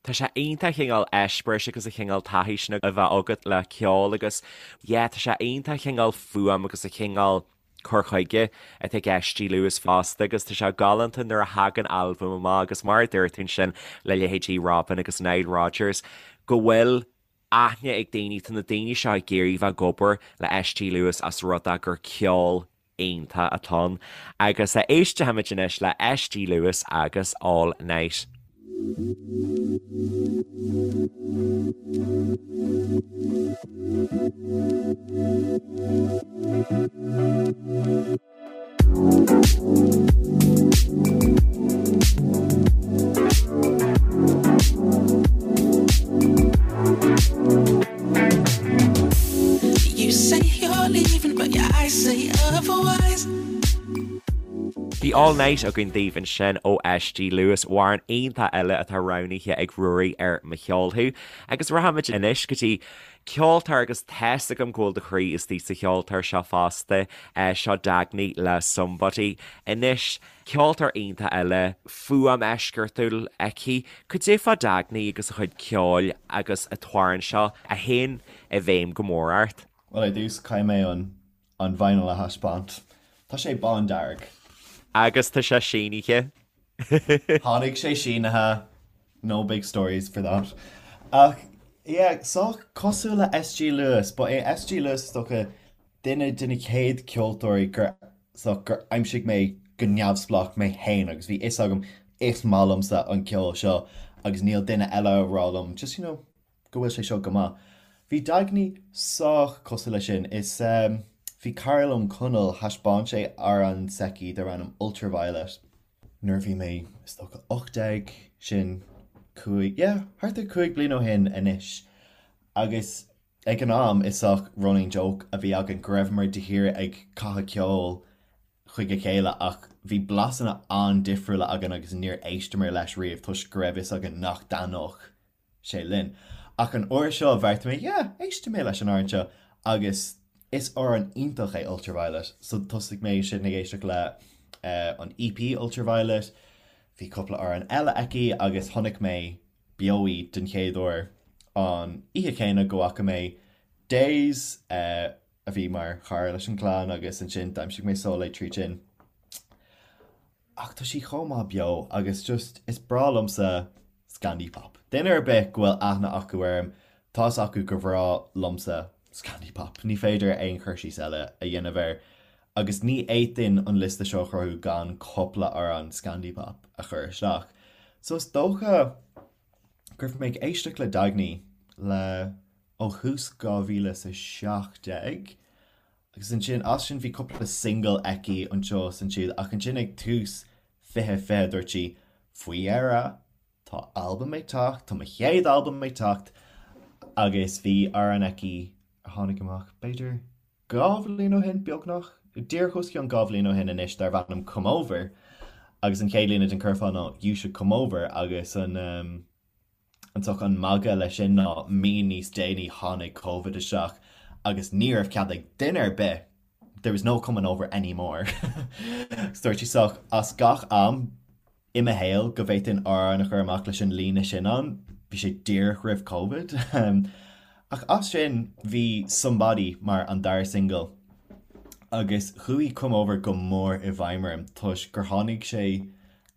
S1: Tá sé iontach an cineál eispéiris agus an cineál taithí sin a bheith agat le ceol agus yeah tá sé iontach an cineál fuaim agus an cineál cur chuige atá ag SG Lewis fosta agus tá sé galánta nuair a thagann albam amach agus mar a dúirt tú ansin le leithéidí Robyn agus Nile Rodgers go bhfuil aithne ag daoine, tá na daoine seo ag iarraidh bheith ag obair le SG Lewis as rud é gur ceol iontach atá ann. Agus éistfimid anois le SG Lewis agus All Night.
S3: You say you're leaving, but your eyes say otherwise.
S1: Bhí All Night againn daoibh ansin ó SG Lewis, amhrán iontach eile atá roghnaithe ag Ruairí ar Mo Cheol Thú. Agus rachaimid anois go dtí Ceoltóir agus tá's agam go bhfuil do chroí istigh sa cheoltóir seo fosta, seo Dagny le Somebody. Anois, ceoltóir iontach eile, fuaim eisceachtúil aici. Cad é fá Dagny agus a chuid ceoil agus an t-amhrán seo a théann i bhfeidhm go mór ort?
S2: Bhuel, ar dtús, caithfidh mé an an vinyl a thaispeáint. Tá sé bándearg.
S1: Agus tá sé sínithe.
S2: Tháinig sé sínithe, no big stories for that. Ach yeah, sách cosúil le SG Lewis, ba é SG Lewis is dócha duine de na chéad ceoltóirí gur sách gur aimsigh mé go neamhspleách mé féin agus bhí fhios agam is maith liomsa an ceol seo agus níl duine eile a rá liom just you know go bhfuil sé seo go maith. Bhí Dagny sách cosúil leis sin. Is bhí cara liom, Conall, thaispeáin sé amhrán s'aici darb ainm Ultraviolet nuair a bhí mé is dócha 18, sin cúig, yeah, thart ar 5 bliana ó shin anois. Agus ag an am is sách running joke a bhí againn go raibheamar de shíor ag caitheamh ceoil chuig a chéile ach bhí blasanna an-difriúla againn agus níor éisteamar leis riamh toisc go raibh fhios againn nach dtaitneodh sé linn. Ach an uair seo bheartaigh mé, yeah, éistfidh mé leis an amhrán seo agus is amhrán iontach é Ultraviolet. So thosaigh mé sin ag éisteacht le an EP Ultraviolet, bhí cúpla amhrán eile aici agus chonaic mé beo í den chéad uair an oíche chéanna go bhfaca mé Daze a bhí mar chara leis an gclann agus ansin d'aimsigh mé Sóley tríd sin. Ach tá sí chomh maith beo agus just is breá liomsa Scandi Pop. Duine ar bith go bhfuil aithne acu orm, tá fhios acu gur bhreá liomsa Scandi Pop. Ní féidir aon chur síos eile a dhéanamh air. Agus ní fhéadfainn an liosta seo a chruthú gan cúpla amhrán Scandi Pop a chur isteach. So is dócha go raibh mé ag éisteacht le Dagny le ó thús 2017 Agus ansin, as sin bhí cúpla single aici anseo is ansiúd ach ansin ag tús 2020 dúirt sí, faoi dheireadh, tá albam ag teacht, tá mo chéad albam ag teacht agus bhí amhrán aici a tháinig amach b'fhéidir 2 bhliain ó shin, beagnach, díreach os cionn 2 bhliain ó shin anois darbh ainm Come Over agus an chéad líne den curfá ná You should come over agus an An sórt an magadh leis sin ná mí níos déanaí tháinig Covid isteach agus ní raibh cead ag duine ar bith, there was no coming over anymore. Agus dúirt sí sách as gach am i mo shaol go bhféadfainn amhrán a chur amach leis an líne sin ann, bhí sé díreach roimh Covid. Ach as sin bhí Somebody mar an dara single agus chuaigh Come Over go mór i bhfeidhm orm toisc gur tháinig sé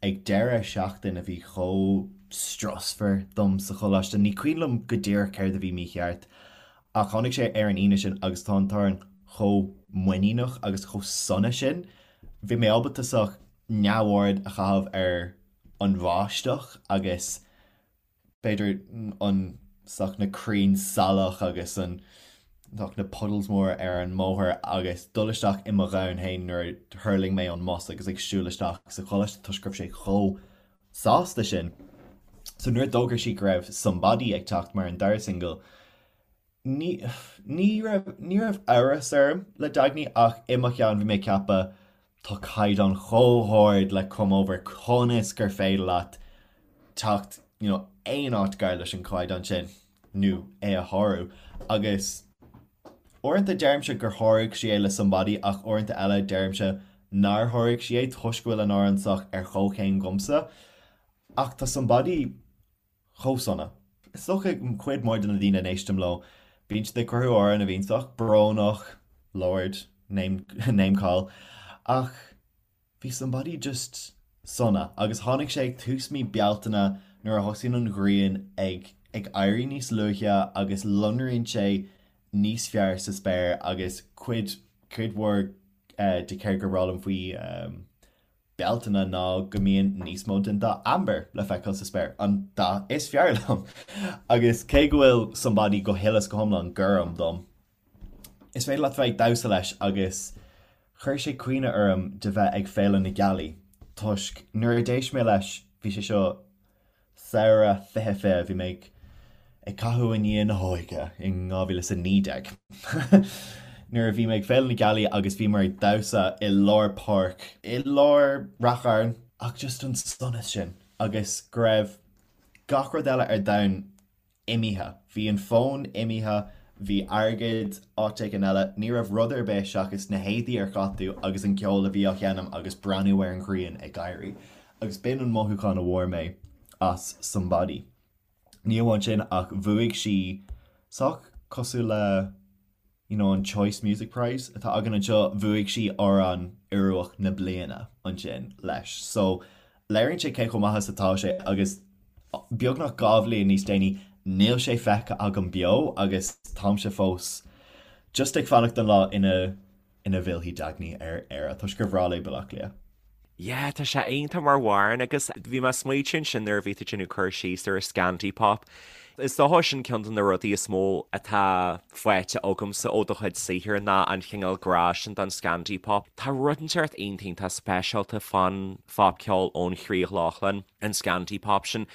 S2: Ag deireadh seachtain a bhí chomh strusmhar dom sa choláiste, ní cuimhin liom go díreach céard a bhí mícheart, ach tháinig sé ar an Aoine sin agus tá an t-amhrán chomh muiníneach agus chomh sona sin. Bhí mé ábalta sách neamhaird a chaitheamh ar an bháisteach agus b'fhéidir an sách na crainn salach agus an sách na puddles mór ar an mbóthar agus dul isteach i mo dhomhan féin nuair a thuirling mé ón mbus agus ag siúl isteach sa choláiste toisc go raibh sé chomh sásta sin. So nuair a d'fhógair sí go raibh Somebody ag teacht mar an dara singil, ní, ní raibh, ní raibh amhras orm le Dagny ach i mo cheann bhí mé ag ceapadh tá caighdeán chomh hard le Come Over, conas gur féidir leat teacht you know, aon áit gar leis an chaighdeán sin nó é a shárú agus Uaireanta deirimse gur sháraigh sí é le Somebody ach uaireanta eile deirimse nár sháraigh sí é toisc go bhfuil an amhrán sách ar chomhchéim dhomsa. Ach tá Somebody chomh sona. Is dócha cuid mhór de na daoine a n-éistim leo, bíonn siad ag cruthú amhrán a bhíonn sách brónach, Lorde, name, name call, ach Bhí Somebody just sona agus tháinig sé ag tús mí Bealtaine nuair a thosaíonn an ghrian ag ag éirí níos luaithe agus lonraíonn sé níos fearr sa spéir agus cuid cuid mhór de céard gur breá liom faoi Bealtaine ná go mbíonn níos mó den dath amber le feiceáil sa spéir, an dath is fearr liom! Agus cé go bhfuil Somebody go huile is go hiomlán gorm dom, Is féidir leat bheith ag damhsa leis agus chuir sé cuimhne orm de bheith ag Féile na Gealaí toisc nuair a d'éist mé leis, bhí sé seo samhradh 2020, bhí mé ag ag caitheamh i ndiaidh na hóige in 2019 nuair a bhí mé ag Féile na Gealaí agus bhíomar ag damhsa i lár páirc i lár Rath Chairn ach just an sonas sin agus go raibh gach rud eile ar domhan imithe. Bhí an fón imithe, bhí airgead áit éigin eile, ní raibh rud ar bith seachas na héadaí ar chaith tú agus an ceol a bhí á sheinm agus breathnú ar an ghrian ag éirí. Agus b'in an mothúchán a bhfuair mé as Somebody. Ní amháin sin ach bhuaigh sí sách cosúil le you know an Choice Music Prize atá againn anseo, bhuaigh sí Amhrán Ioruach na Bliana ansin leis. So léiríonn sé cé chomh maith is atá sé agus beagnach 2 bhliain níos déanaí níl sé feicthe agam beo agus táimse fós just ag fanacht don lá ina ina bhfillfidh Dagny ar Éire toisc gur bhreá léi Baile Átha Cliath.
S1: Yeah, tá sé iontach mar amhrán agus bhí mé ag smaoitiú ansin nuair a bhí tú ag déanamh cur síos ar an Scandi Pop. Is dócha sin ceann de na rudaí is mó atá faighte agamsa ó do chuid saothair ná an chineál grá sin don Scandi Pop. Tá rud inteacht iontach iontach speisialta fán phopcheol ón Chríoch Lochlann, an Scandi Pop sin.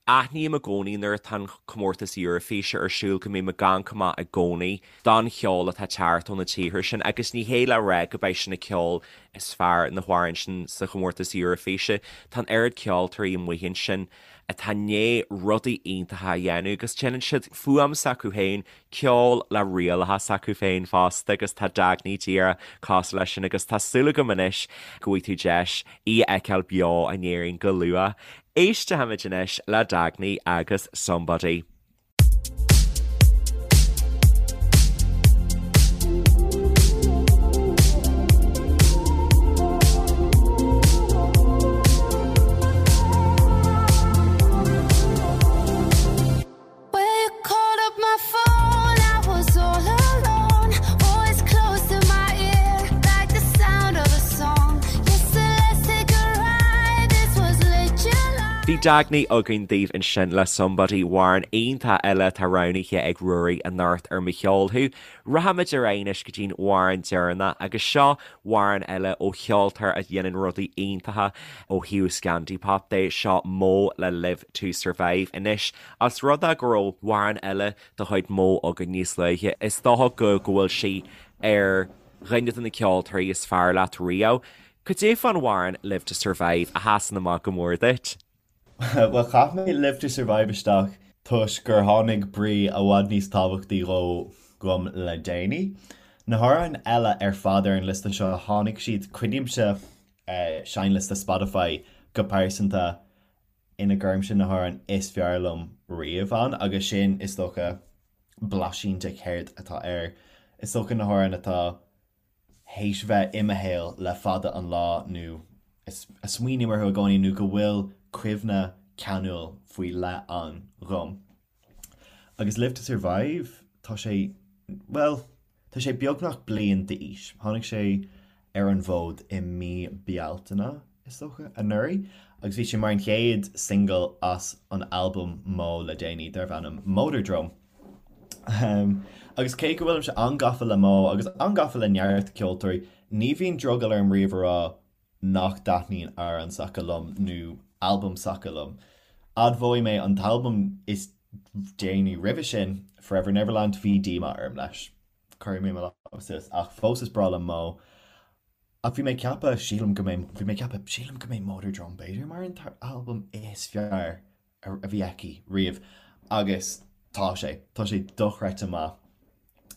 S1: Aithním i gcónaí nuair atá an comórtas Eurofíse ar siúl go mbím ag amharc amach i gcónaí don cheol atá ag teacht ó na tíortha sin agus ní hé le rá go beidh sin an ceol is fearr na hamhráin sin sa chomórtas Eurofíse. Tá an oiread ceoltóirí amuigh ansin atá i ndiaidh rudaí iontacha a dhéanamh agus déanann siad fuaim s'acu féin, ceol le rialacha s'acu féin fosta agus tá Dagny díreach cosúil leis sin agus tá súil agam anois go bhfaighidh tú deis í a fheiceáil beo in Éirinn go luath. Éistfimid anois le Dagny agus Somebody. Bhí Dagny againn daoibh ansin le Somebody, amhrán iontach eile atá roghnaithe ag Ruairí anocht ar Mo Cheol Thú. Rachaimid ar aghaidh anois go dtí'n amhrán deireanach agus seo amhrán eile ó cheoltóir a dhéanann rudaí iontacha ó thaobh Scandi-pop de, seo MØ le Live To Survive. Anois, os rud é go raibh amhrán eile de chuid MØ againn níos luaithe, is dócha go go bhfuil sí ar dhuine de na ceoltóirí is fearr leat riamh. Cad é fán amhrán Live to Survive a sheasann amach go mór duit?
S2: Bhuel, chaith mé Live to Survive isteach toisc gur tháinig brí i bhfad níos tábhachtaí dhó dhom le déanaí. Na hamhráin eile ar fad ar an liosta seo, tháinig siad, coinnímse seinnliosta Spotify go pearsanta ina gcuirimse na hamhráin is fearr liom riamh ann agus sin, is dócha, blaisín de céard atá air. Is dócha na hamhráin atá théis bheith i mo shaol le fada an lá nó a smaoiním orthu i gcónaí nó go bhfuil cuimhne ceanúil faoi leith ann dhom. Agus Live to Survive, tá sé, bhuel, tá sé beagnach bliain d'aois. Tháinig sé ar an bhfód i mí Bealtaine, is dócha, anuraidh, agus bhí sé mar an chéad single as an albam Mo le déanaí darbh ainm Motordrome. Agus cé go bhfuilimse an-gafa le Mo agus an-gafa le neart ceoltóirí, ní bhíonn drogall orm riamh a rá nach dtaitníonn amhrán s'acu liom nó albam s'acu liom. Admhóidh mé an t-albam is déanaí roimhe sin, Forever Neverland, bhí díomá orm leis. Cuirfidh mé mo lámh suas. Ach fós is breá liom Mo. Ach bhí mé ag ceapadh, sílim go mbeidh, bhí mé ag ceapadh, sílim go mbeidh Motordrome b'fhéidir mar an t-albam is fearr a bhí aici riamh. Agus tá sé. Tá sé dochreidte maith.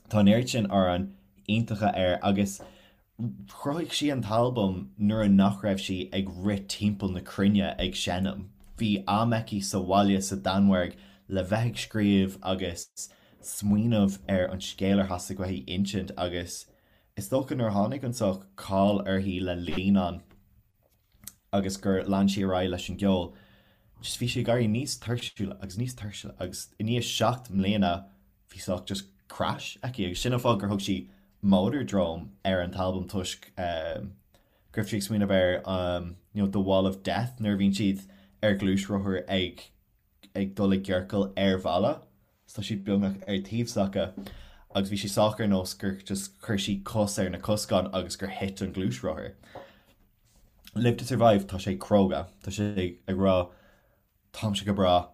S2: Tá an oiread sin amhráin iontacha air agus chruthaigh sí an t-albam nuair a nach raibh sí ag rith timpeall na cruinne ag seinm. Bhí am aici sa bhaile sa Danmhairg le bheith ag scríobh agus smaoineamh ar an scéal ar theastaigh uaithi insint agus is dócha nuair a tháinig an sórt cáil uirthi le linn an agus gur lean sí ar aghaidh leis an gceol, just bhí sí ag éirí níos tuirsiúla agus níos tuirsiúla agus i ndiaidh 7 mbliana bhí sórt just crash aici agus sin an fáth gur thug sí Motordrome ar an t-albam toisc go raibh sí ag smaoineamh ar you know the wall of death nuair a bhíonn siad ar ghluaisrothar ag ag dul i gciorcal ar bhalla so tá siad beagnach ar taobh s'acu agus bhí sé sách ar nós gur just chuir sí cos ar na coscáin agus gur thit an gluaisrothar. Live to Survive, tá sé cróga, tá sé ag rá táimse go breá,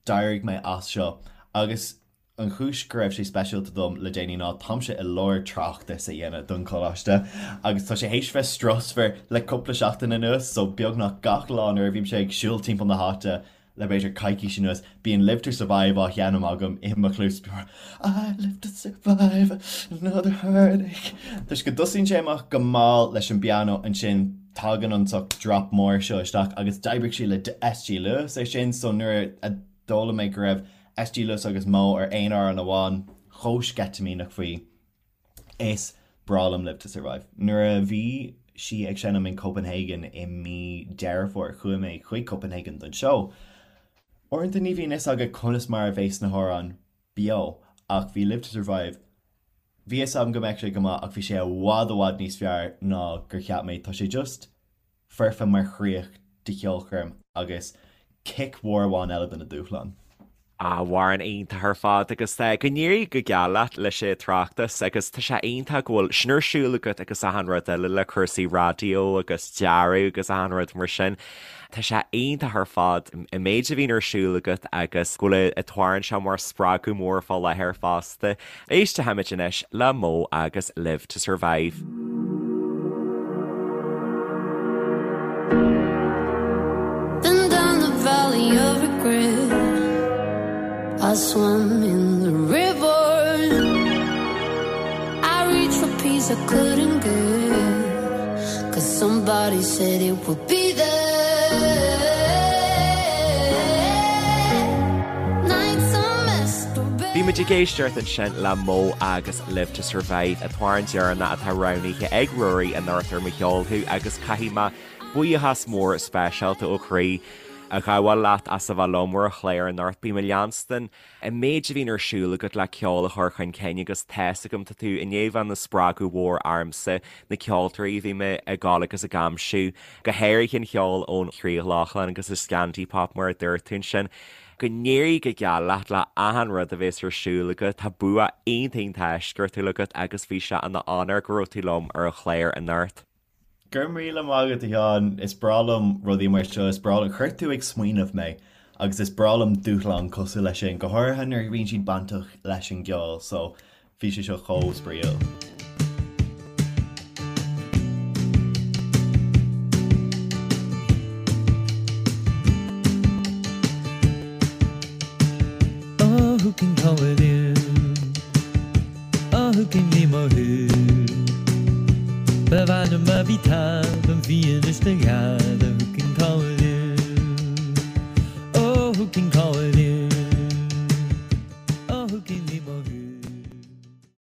S2: d'éirigh mé as seo agus an chúis go raibh sé speisialta dom le déanaí ná táimse i lár tráchtas a dhéanamh don choláiste agus tá sé théis bheith strusmhar le cúpla seachtain anuas so beagnach gach lá nuair a bhímse ag siúl timpeall na háite le b'fhéidir coicís anuas, bíonn Live to Survive á sheinm agam i mo chluas, I live to survive another heartache. Toisc go dtosaíonn sé amach go mall leis an bpianó, ansin tagann an sórt drop mór seo isteach agus d'oibrigh sí le SG Lewis ar sin, so nuair a d'fhoghlaim mé go raibh SG Lewis agus Mo ar aon amhrán amháin, chomh sceitimíneach faoi. Is breá liom Live to Survive. Nuair a bhí sí ag seinm in Copenhagen i mí Deireadh Fómhair, chuaigh mé chuig Copenhagen don seó. Uaireanta ní bhíonn fhios agat conas mar a bheas na hamhráin beo, ach bhí Live to Survive, bhí fhios agam go mbeadh sé go maith ach bhí sé i bhfad i bhfad níos fearr ná gur cheap mé. Tá sé just foirfe mar chríoch do cheolchoirm agus cic mhór amháin eile do na dúshláin.
S1: Amhrán iontach ar fad agus go n-éirí go geal leat leis an tráchtas agus tá sé iontach go bhfuil sin ar siúl agat agus achan rud eile le cúrsaí raidió agus dearadh agus achan rud mar sin. Tá sé iontach ar fad an méid a bhíonn ar siúl agat agus go bhfuil an t-amhrán seo mar spreagadh mór fá láthair fosta. Éistfimid anois le Mo agus Live to Survive.
S3: Then down the valley of regret I swam in the river I reached for peace I couldn't get Cause somebody said it would be there
S1: Bhí muid ag éisteacht ansin le Mo agus Live to Survive, an t-amhrán deireanach atá roghnaithe ag Ruairí anocht ar Mo Cheol Thú agus caithfidh mé buíochas mór speisialta ó chroí a ghabháil leat as a bheith liom ar an chlár anocht. Bím ag leanstan an méid a bhíonn ar siúl agat le ceol a chur chun cinn agus tá's agam tá tú i ndiaidh bheith ina spreagadh mhór ormsa, na ceoltóirí a bhí mé ag gabháil agus ag aimsiú, go háirithe an cheol ón Chríoch Lochlann agus an Scandi Pop mar a dúirt tú ansin. Go n-éirí go geal leat le achan rud a bhéas ar siúl agat. Tá bua iontach iontach eisceachtúil agat agus bhí sé ina onóir go raibh tú liom ar an chlár anocht.
S2: Go raibh míle maith agat, a Sheáin. Is breá liom rudaí mar seo. Is breá liom, chuir tú ag smaoineamh mé agus is breá liom dúshlán cosúil leis sin, go háirithe nuair a bhíonn siad bainteach leis an gceol. So, Bhí sé seo chomh spraíúil.
S4: Oh who can call it in? Oh who can ní mo thú? Ba mhaith liom a bhí taobh an bhí anois do ghead Oh who can call it in? Oh who can call it in?